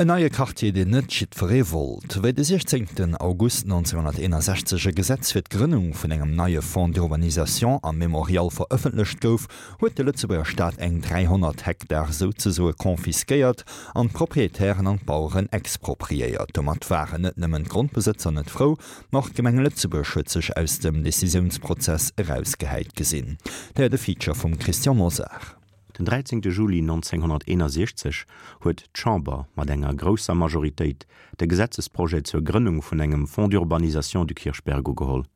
En neie Quartier, deen net jiddweree wollt. Wéi de 16 August 1961 e Gesetz fir d'Grënnung vun engem neie Fonds d'urbanisation am Mémorial verëffentlecht gouf, huet de Lëtzebuerger Staat eng 300 Hektar souzesoe confisquéiert an d'Proprietären an d'Baueren expropriéiert. Domat waren net nëmmen d'Grondbesëtzer net frou, ma och d'Gemeng Lëtzebuerg huet sech aus dem Decisiounsprozess erausgehäit gesinn. Där de Feature vum Christian Mosar. Den 13 Juli 1961 huet d'Chamber mat enger grousser Majoritéit de Gesetzesprojet zur Grënnung vun engem Fonds d'urbanisation du Kirchberg ugeholl.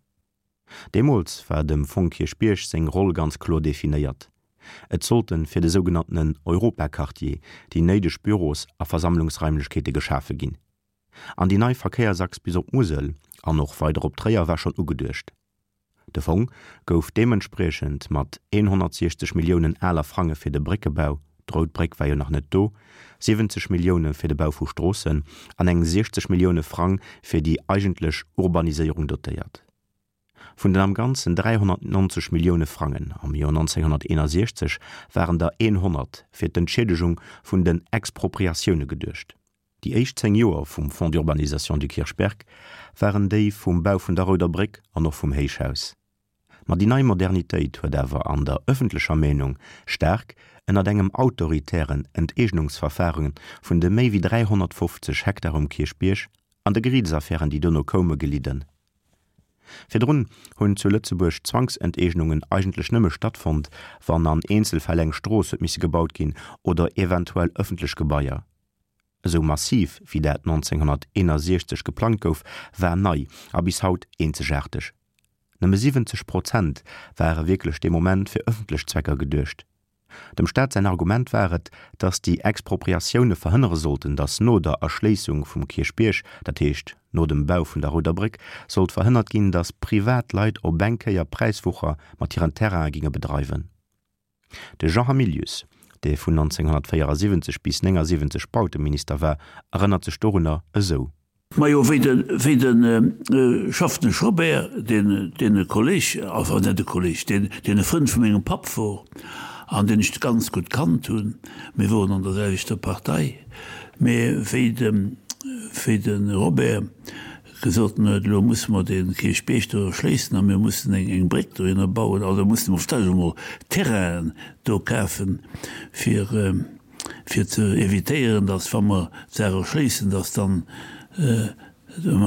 Deemools war dem Fonds Kierchbierg seng Roll ganz kloer definéiert, Et sollte fir de sougenanntenen Europaquartier déi néideg Büros a Versammlungsraimlechkeete geschafe ginn. An déi nei Verkéiersachs bis op d'Musel an och weider op Tréier war schonn ugeduecht. De Fong gouf deementspriechend mat 160 Milliounen aler Frange fir de Bréckebau, d'Rout Bréck war jo nach net do, 70 Millioune fir de Bau vu Stroossen an eng 60 Millioune Frang fir déi eigentlech Urbaniséierung dotéiert. Vun den am Ganzen 390 Millioune Frangen am Joer 1961 waren der 100 fir d'Entschiedegung vun den Expropriatioune geduecht. Déi éischt 10 Joer vum Fonds d'urbanisation du Kirchberg waren déi vum Bau vun der Rouder Bréck an och vum Héichhaus. Ma déi nei Modernitéit huet awer an der ëffentlecher Meenung staark ënnert engem autoritären Enteegnungsverfaren vun de méi wéi 350 Hektar um Kierchbierg an de Geriitsaffären, déi dono koume, gelidden. Virdrun hunn zu Lëtzebuerg Zwangsenteegnungen eigentlech nëmme stattfonnt, wann an Eenzelfäll eng Strooss huet misse gebaut ginn oder eventuell ëffentlech Gebaier. Esou massiv wéi dat 1961 geplangt gouf, war nei a bis haut eenzegaarteg. Nëmme 70 Prozent ware wierklech dee Moment fir ëffentlech Zwecker geduecht. Dem Staat säin Argument war et, datt déi Expropriatioune verhënnere sollten, datt no der Erschléissung vum Kierchbierg, dat heescht no dem Bau vun der Rouder Bréck, sollt verhënnert ginn, datt privat Leit op eng Kéier Präiswucher mat hiren Terraine ginge bedreiwen. De Jean Hamilius, dee vun 1974 bis 79 Bauteminister war, erënnert sech dorunner esou. Majo, wéi de, wéi de Schaffnesch Robert, deen, deen e Kolleg, enfin net e Kolleg, deen, deen e Frënd vu mengem Papp wor an deen ech ganz gutt kannt hunn, mir woren an der selwechter Partei, mä wéi de, wéi de Robert gesot huet, elo musse mer dee Kierchbierg do erschléissen a mir mussen eng Bréck dohinner bauen, also musse mer vläicht emol Terrainen do kafen, fir fir ze évitéieren, datt wa mer d'Saach erschléissen, datt dann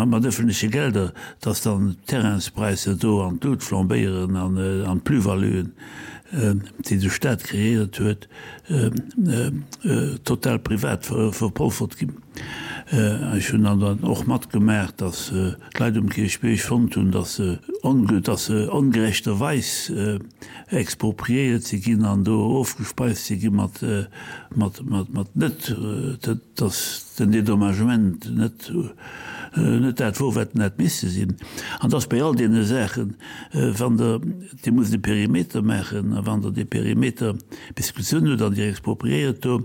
mat öffentleche Gelder, datt dann d'Terrainspräisser do an d'Lut flambéieren an d'Plus-valuen, déi de Stat kreéiert huet, total privat verpolfert ginn. Ech hunn dann dann och matgemaach, datt d'Leit um Kierchbierg fonnt hunn, datt se datt se ongerechterweis expropriéiert si ginn an do ofgespeist si gi mat mat mat mat net datt den Dédommagement net net dat wor, wat en hätt misse sinn. An datt bei all deene Saachen, wann Der Dir musst e Perimeter maachen, a wann Der dee Perimeter bis gezunn hutt an Dir expropriéiert do,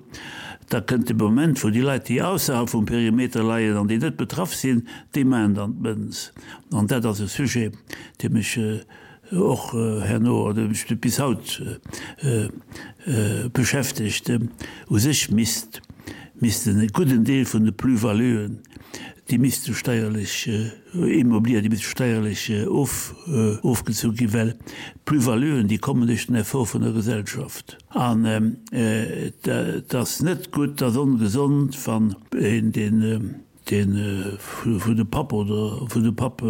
da kënnt de Moment, wou déi Leit, déi ausserhalb vum Perimeter leien an déi net betraff sinn, déi maachen dann d'Mënz. An dat ass e Sujet, dee mech och herno oder mech bis haut beschäftegt. U sech misst missten e gudden Deel vun de Plus-valuen, déi misste steierlech Immobilier, déi misste steierlech ofgezu ginn, well d'Plus-valuen, déi kommen duerch den Effort vun der Gesellschaft. An et ass net gutt, et ass ongesond, wann een, deen vun de Papp oder vun de Papp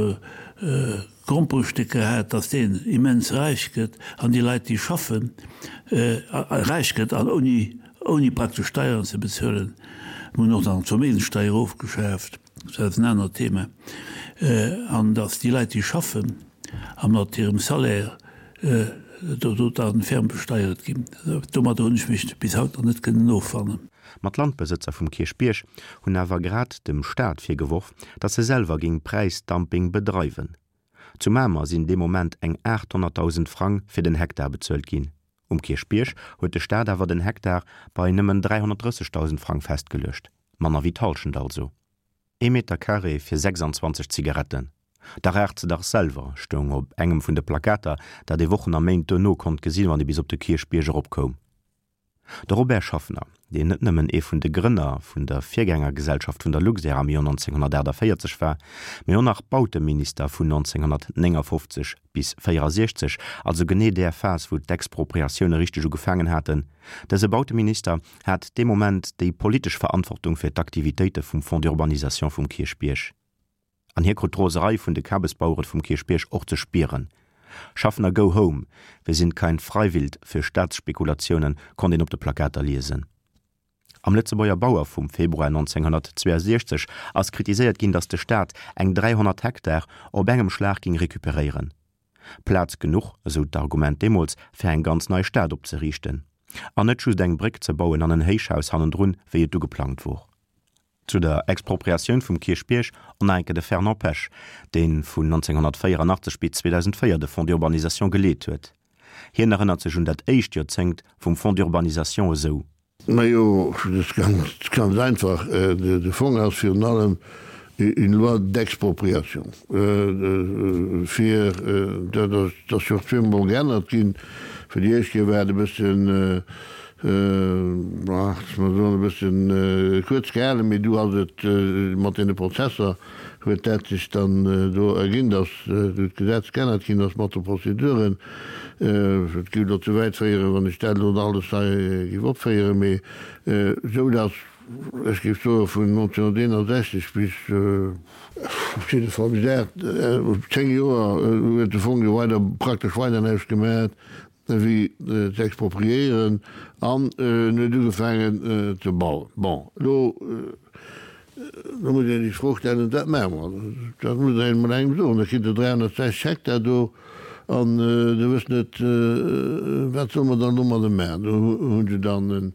Gromperestécker hat, datt deen immens räich gëtt an déi Leit, déi schaffen, räich gëtt an ouni praktesch Steieren ze bezuelen. Mir hunn och nach d'Verméigenssteier ofgeschaaft. Dat ass en anert Thema, an datt déi Leit, déi schaffen a mat hirem Salaire do da ferm besteiert ginn. Domadder hunn ech mech bis haut nach net kënnen offannen. Ma d'Landbesëtzer vum Kierchbierg hunn awer grad dem Staat virgeworf, datt e selwer géing Präisdumping bedreiwen. Zu Mamer sinn dee Moment eng 800.000 Frang fir den Hektar bezuelt ginn. Um Kierchbierg huet de Staat awer den Hektar bei nëmmen 330.000 Frang festgeluecht. Manner wéi d'Hallschent also. Ee Meter Carré fir 26 Zigaretten. Da raucht se dach selwer, stoung op engem vun de Plakater, dat ee Wochen a Méint duerno konnt gesinn, wann ee bis op de Kierchbierg eropkoum. De Robert Schaffner, deen net nëmmen ee vun de Grënner vun der Virgängergesellschaft vun der Luxair am Joer 1948 war, mee och nach Bauteminister vun 1959 bis 64, also genee där Phas wou d'Expropriatioune richteg ugefaangen haten, dëse Bauteminister hat dee Moment déi politesch Verantwortung fir d'Aktivitéite vum Fonds d'urbanisation vum Kierchbierg. An hie krut d'Roserei vun de Kabesbauere vum Kierchbierg och ze spieren. Schaffner go home, wir sind kein Freiwild für Staatsspekulationen konnt een op de Plakater liesen. Am Lëtzebuerger Bauer vum Februar 1962 ass kritiséiert ginn, datt de Staat eng 300 Hektar op engem Schlag ging recuperéieren. Plaz genuch, esou d'Argument deemools, fir eng ganz nei Stad opzeriichten. An net just eng Bréck ze bauen an en Héichhaus hannendrun, wéi et du geplangt wor. Zu der Expropriatioun vum Kierchbierg on nach enke de Fernand Pesch, dee vun 1984 bis 2004 de Fonds d'urbanisation geleet huet. Hien erënnert sech un dat éischt Joerzéngt vum Fonds d'urbanisation esou. Majo, dat ass ganz, ganz einfach. De Fong ass virun allem une loi d'expropriation. Fir, dat ass jo och zweemol geännert ginn. Fir déi éischt Kéier war et e bëssen, Ach, mer soen e bëssen kuerz gehalen, mee du ass et mat deene Prozesser huet dat sech dann do erginn, datt du d'Gesetz geännert ginn ass mat de Prozeduren. Et géif elo ze wäit féieren, wann ech dat elo alles hei géif opféieren, mee esou datt ech géif soe vun 1961 bis op jidde Fall bis 8, 10 Joer huet de Fong jo weider praktesch weider näischt gemaach. Wéi ze expropriéieren an en huet ugefaangen ze bauen. Bon, elo elo muss een sech d'Fro stellen, Wat maache mer? Dat muss een emol engem soen. Da kritt Der 360 Hektar do an Der wësst net, wat solle mer dann domadder maachen. Do hu se dann en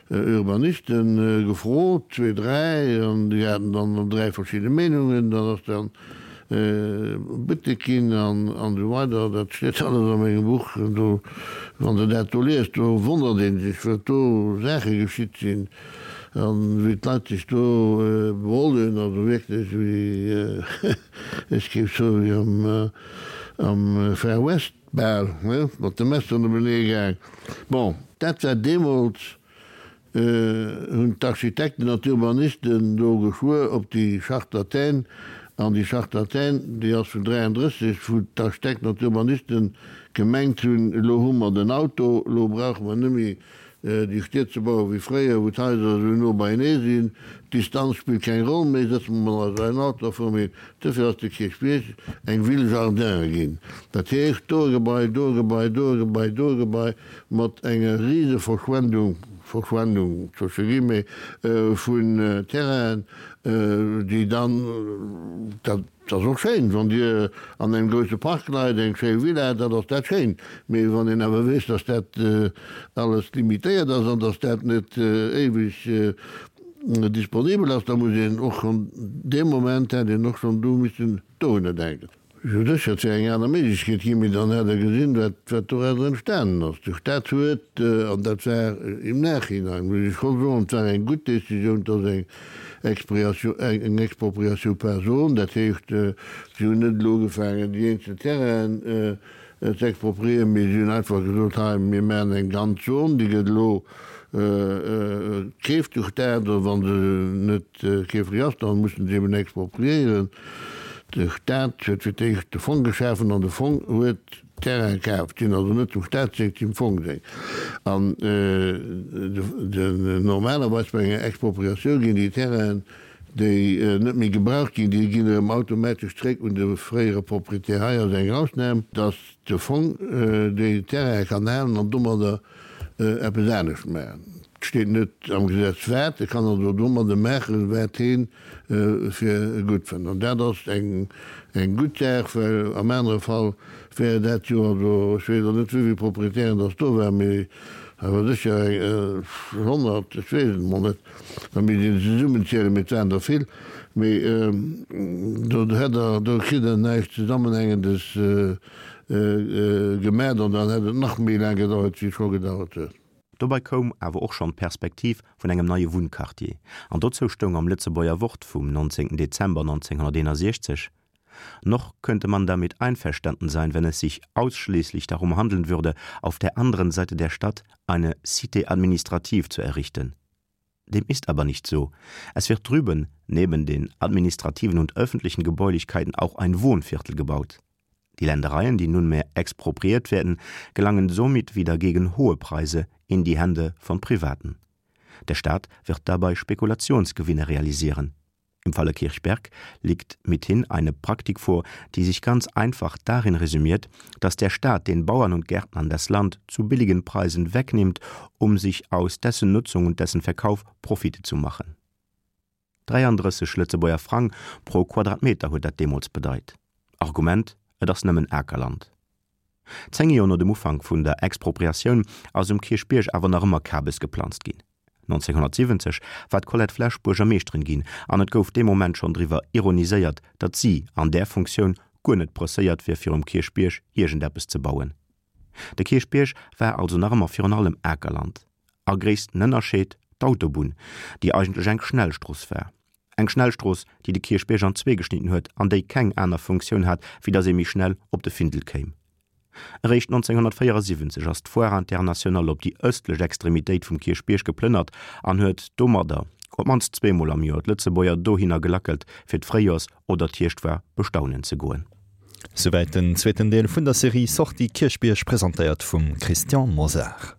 Urbaniste gefrot, zwee, dräi, an déi haten dann dräi verschidde Meenungen. Dann ass dann Buttek ginn an esou weider. Dat steet alles a mengem Buch. Do, wann Der dat do liest, do wonnert ee sech, wat do Saache geschitt sinn an wéi d'Leit sech do beholl hunn. Also wierklech wéi, ech géif soen, wéi am Far West bal, ne, mat de Messeren openee gaang. Bon, dat war deemools hunn d'Architekten an d'Urbanisten do geschwuer op déi Charte d'Athènes, an déi Charte d'Athènes, déi ass vun 33, wou d'Architekten an d'Urbanisten gemengt hunn, elo hu mer den Auto, elo brauche mer net méi déi Stied ze bauen wéi fréier, wou d'Haiser esou no beienee sinn, d'Distanz spillt keng Roll méi, sëtze mer mol eis an en Auto a fuere méi. Duerfir ass de Kierchbierg eng Ville jardin ginn, dat heescht do e Gebai, do e Gebai, do e Gebai, do e Gebai, mat enger rise Verschwendung, Verschwendung zwësche Guillemets, vun Terrainen, déi dann, dat ass och schéin, wann Dir an engem grousse Park leit, eng schéi Villa, dat ass dat schéin, mee wann een awer weess, dass dat alles limitéiert ass an dass dat net éiweg disponibel ass, da muss een och schonn dee Moment, hätt een och schonn do missen dohunner denken. Jo sécher, et wär eng aner Méiglechkeet ginn, mee dann hätt Der gesinn, wat, wat doraus entstanen ass. De Stat huet, an dat war im Nachhinein, muss ech scho soen, et war eng gutt Décisioun, dass eng Expriatio, eng Expropriation par zone, dat heescht, si hunn net elo ugefaangen, déi eenzel Terrainen ze expropriéieren, mee si hunn einfach gesot, hei, mir maachen eng ganz Zon, déi gëtt elo keeft de Stat, oder wa se net Keeflech ass, dann mussen se eben expropriéieren. De Staat huet fir d'éischt de Fong geschafen an de Fong huet Terraine kaaft. Sinn also net dem Staat seng, dem Fong seng. An normalerweis bei enger Expropriatioun ginn déi Terrainen, déi net méi gebraucht ginn, déi ginn erëm automatesch zréck un de fréiere Proprietär. Hei ass eng Ausnam, dass de Fong déi Terraine kann halen an domadder eppes anescht maachen. Et steet net am Gesetz wat, e kann also domadde maachen, wat hee fir gutt fënnt. An dat ass eng gutt Saach, well am anere Fall wär dat jo, also ech weess och net wéivill Proprietären dass do waren, mee awer sécher eng 100, ech weess et emol net, da misst een zesummenzielen, mee et waren der vill, mee do hätt Der, do kritt Der näischt Zesammenhängendes Gemat an dann hätt et nach méi laang gedauert wéi et scho gedauert huet. Dobei koum awer och schonn d'Perspektiv vun engem neie Wunnquartier, an dozou stoung am Lëtzebuerger Wort vum 19 Dezember 1961. Noch könnte man damit einverstanden sein, wenn es sich ausschließlich darum handeln würde, auf der anderen Seite der Stadt eine Cité administrative zu errichten. Dem ist aber nicht so. Es wird drüben neben den administrativen und öffentlichen Gebäulichkeiten auch ein Wohnviertel gebaut. Die Ländereien, die nunmehr expropriiert werden, gelangen somit wieder gegen hohe Preise in die Hände von Privaten. Der Staat wird dabei Spekulationsgewinne realisieren. Im Falle Kirchberg liegt mithin eine Praktik vor, die sich ganz einfach darin resümiert, dass der Staat den Bauern und Gärtnern das Land zu billigen Preisen wegnimmt, um sich aus dessen Nutzung und dessen Verkauf Profite zu machen. 33 Lëtzebuerger Frang pro Quadratmeter huet dat deemools bedeit. Argument, Et ass nëmmen Akerland. Zéng Joer no dem Ufank vun der Expropriatioun ass um Kierchbierg awer nach ëmmer Kabes geplanzt ginn. 1970 war d'Colette Flesch Buergermeeschterin ginn an et gouf dee Moment schonn driwwer ironiséiert, datt si an där Funktioun guer net presséiert wier fir um Kierchbierg iergendeppes ze bauen. De Kierchbierg war also nach ëmmer virun allem Akerland. A gréissten Ënnerscheed, d'Autobunn, déi eigentlech eng Schnellstrooss war. Eng Schnellstrooss, déi de Kierchbierg an zwee geschnidden huet an déi keng aner Funktioun hat, wéi datt ee méi schnell op de Findel kéim. Eréischt 1974 ass d'Foire Internationale op déi ëstlech Extremitéit vum Kierchbierg geplënnert an huet domadder op d'mannst zweemol am Joer d'Lëtzebuerger dohinner gelackelt, fir d'Fréijoers oder d'Hierschtfoire bestaunen ze goen. Souwäit den zweeten Deel vun der Serie Sortie Kierchbierg, presentéiert vum Christian Mosar.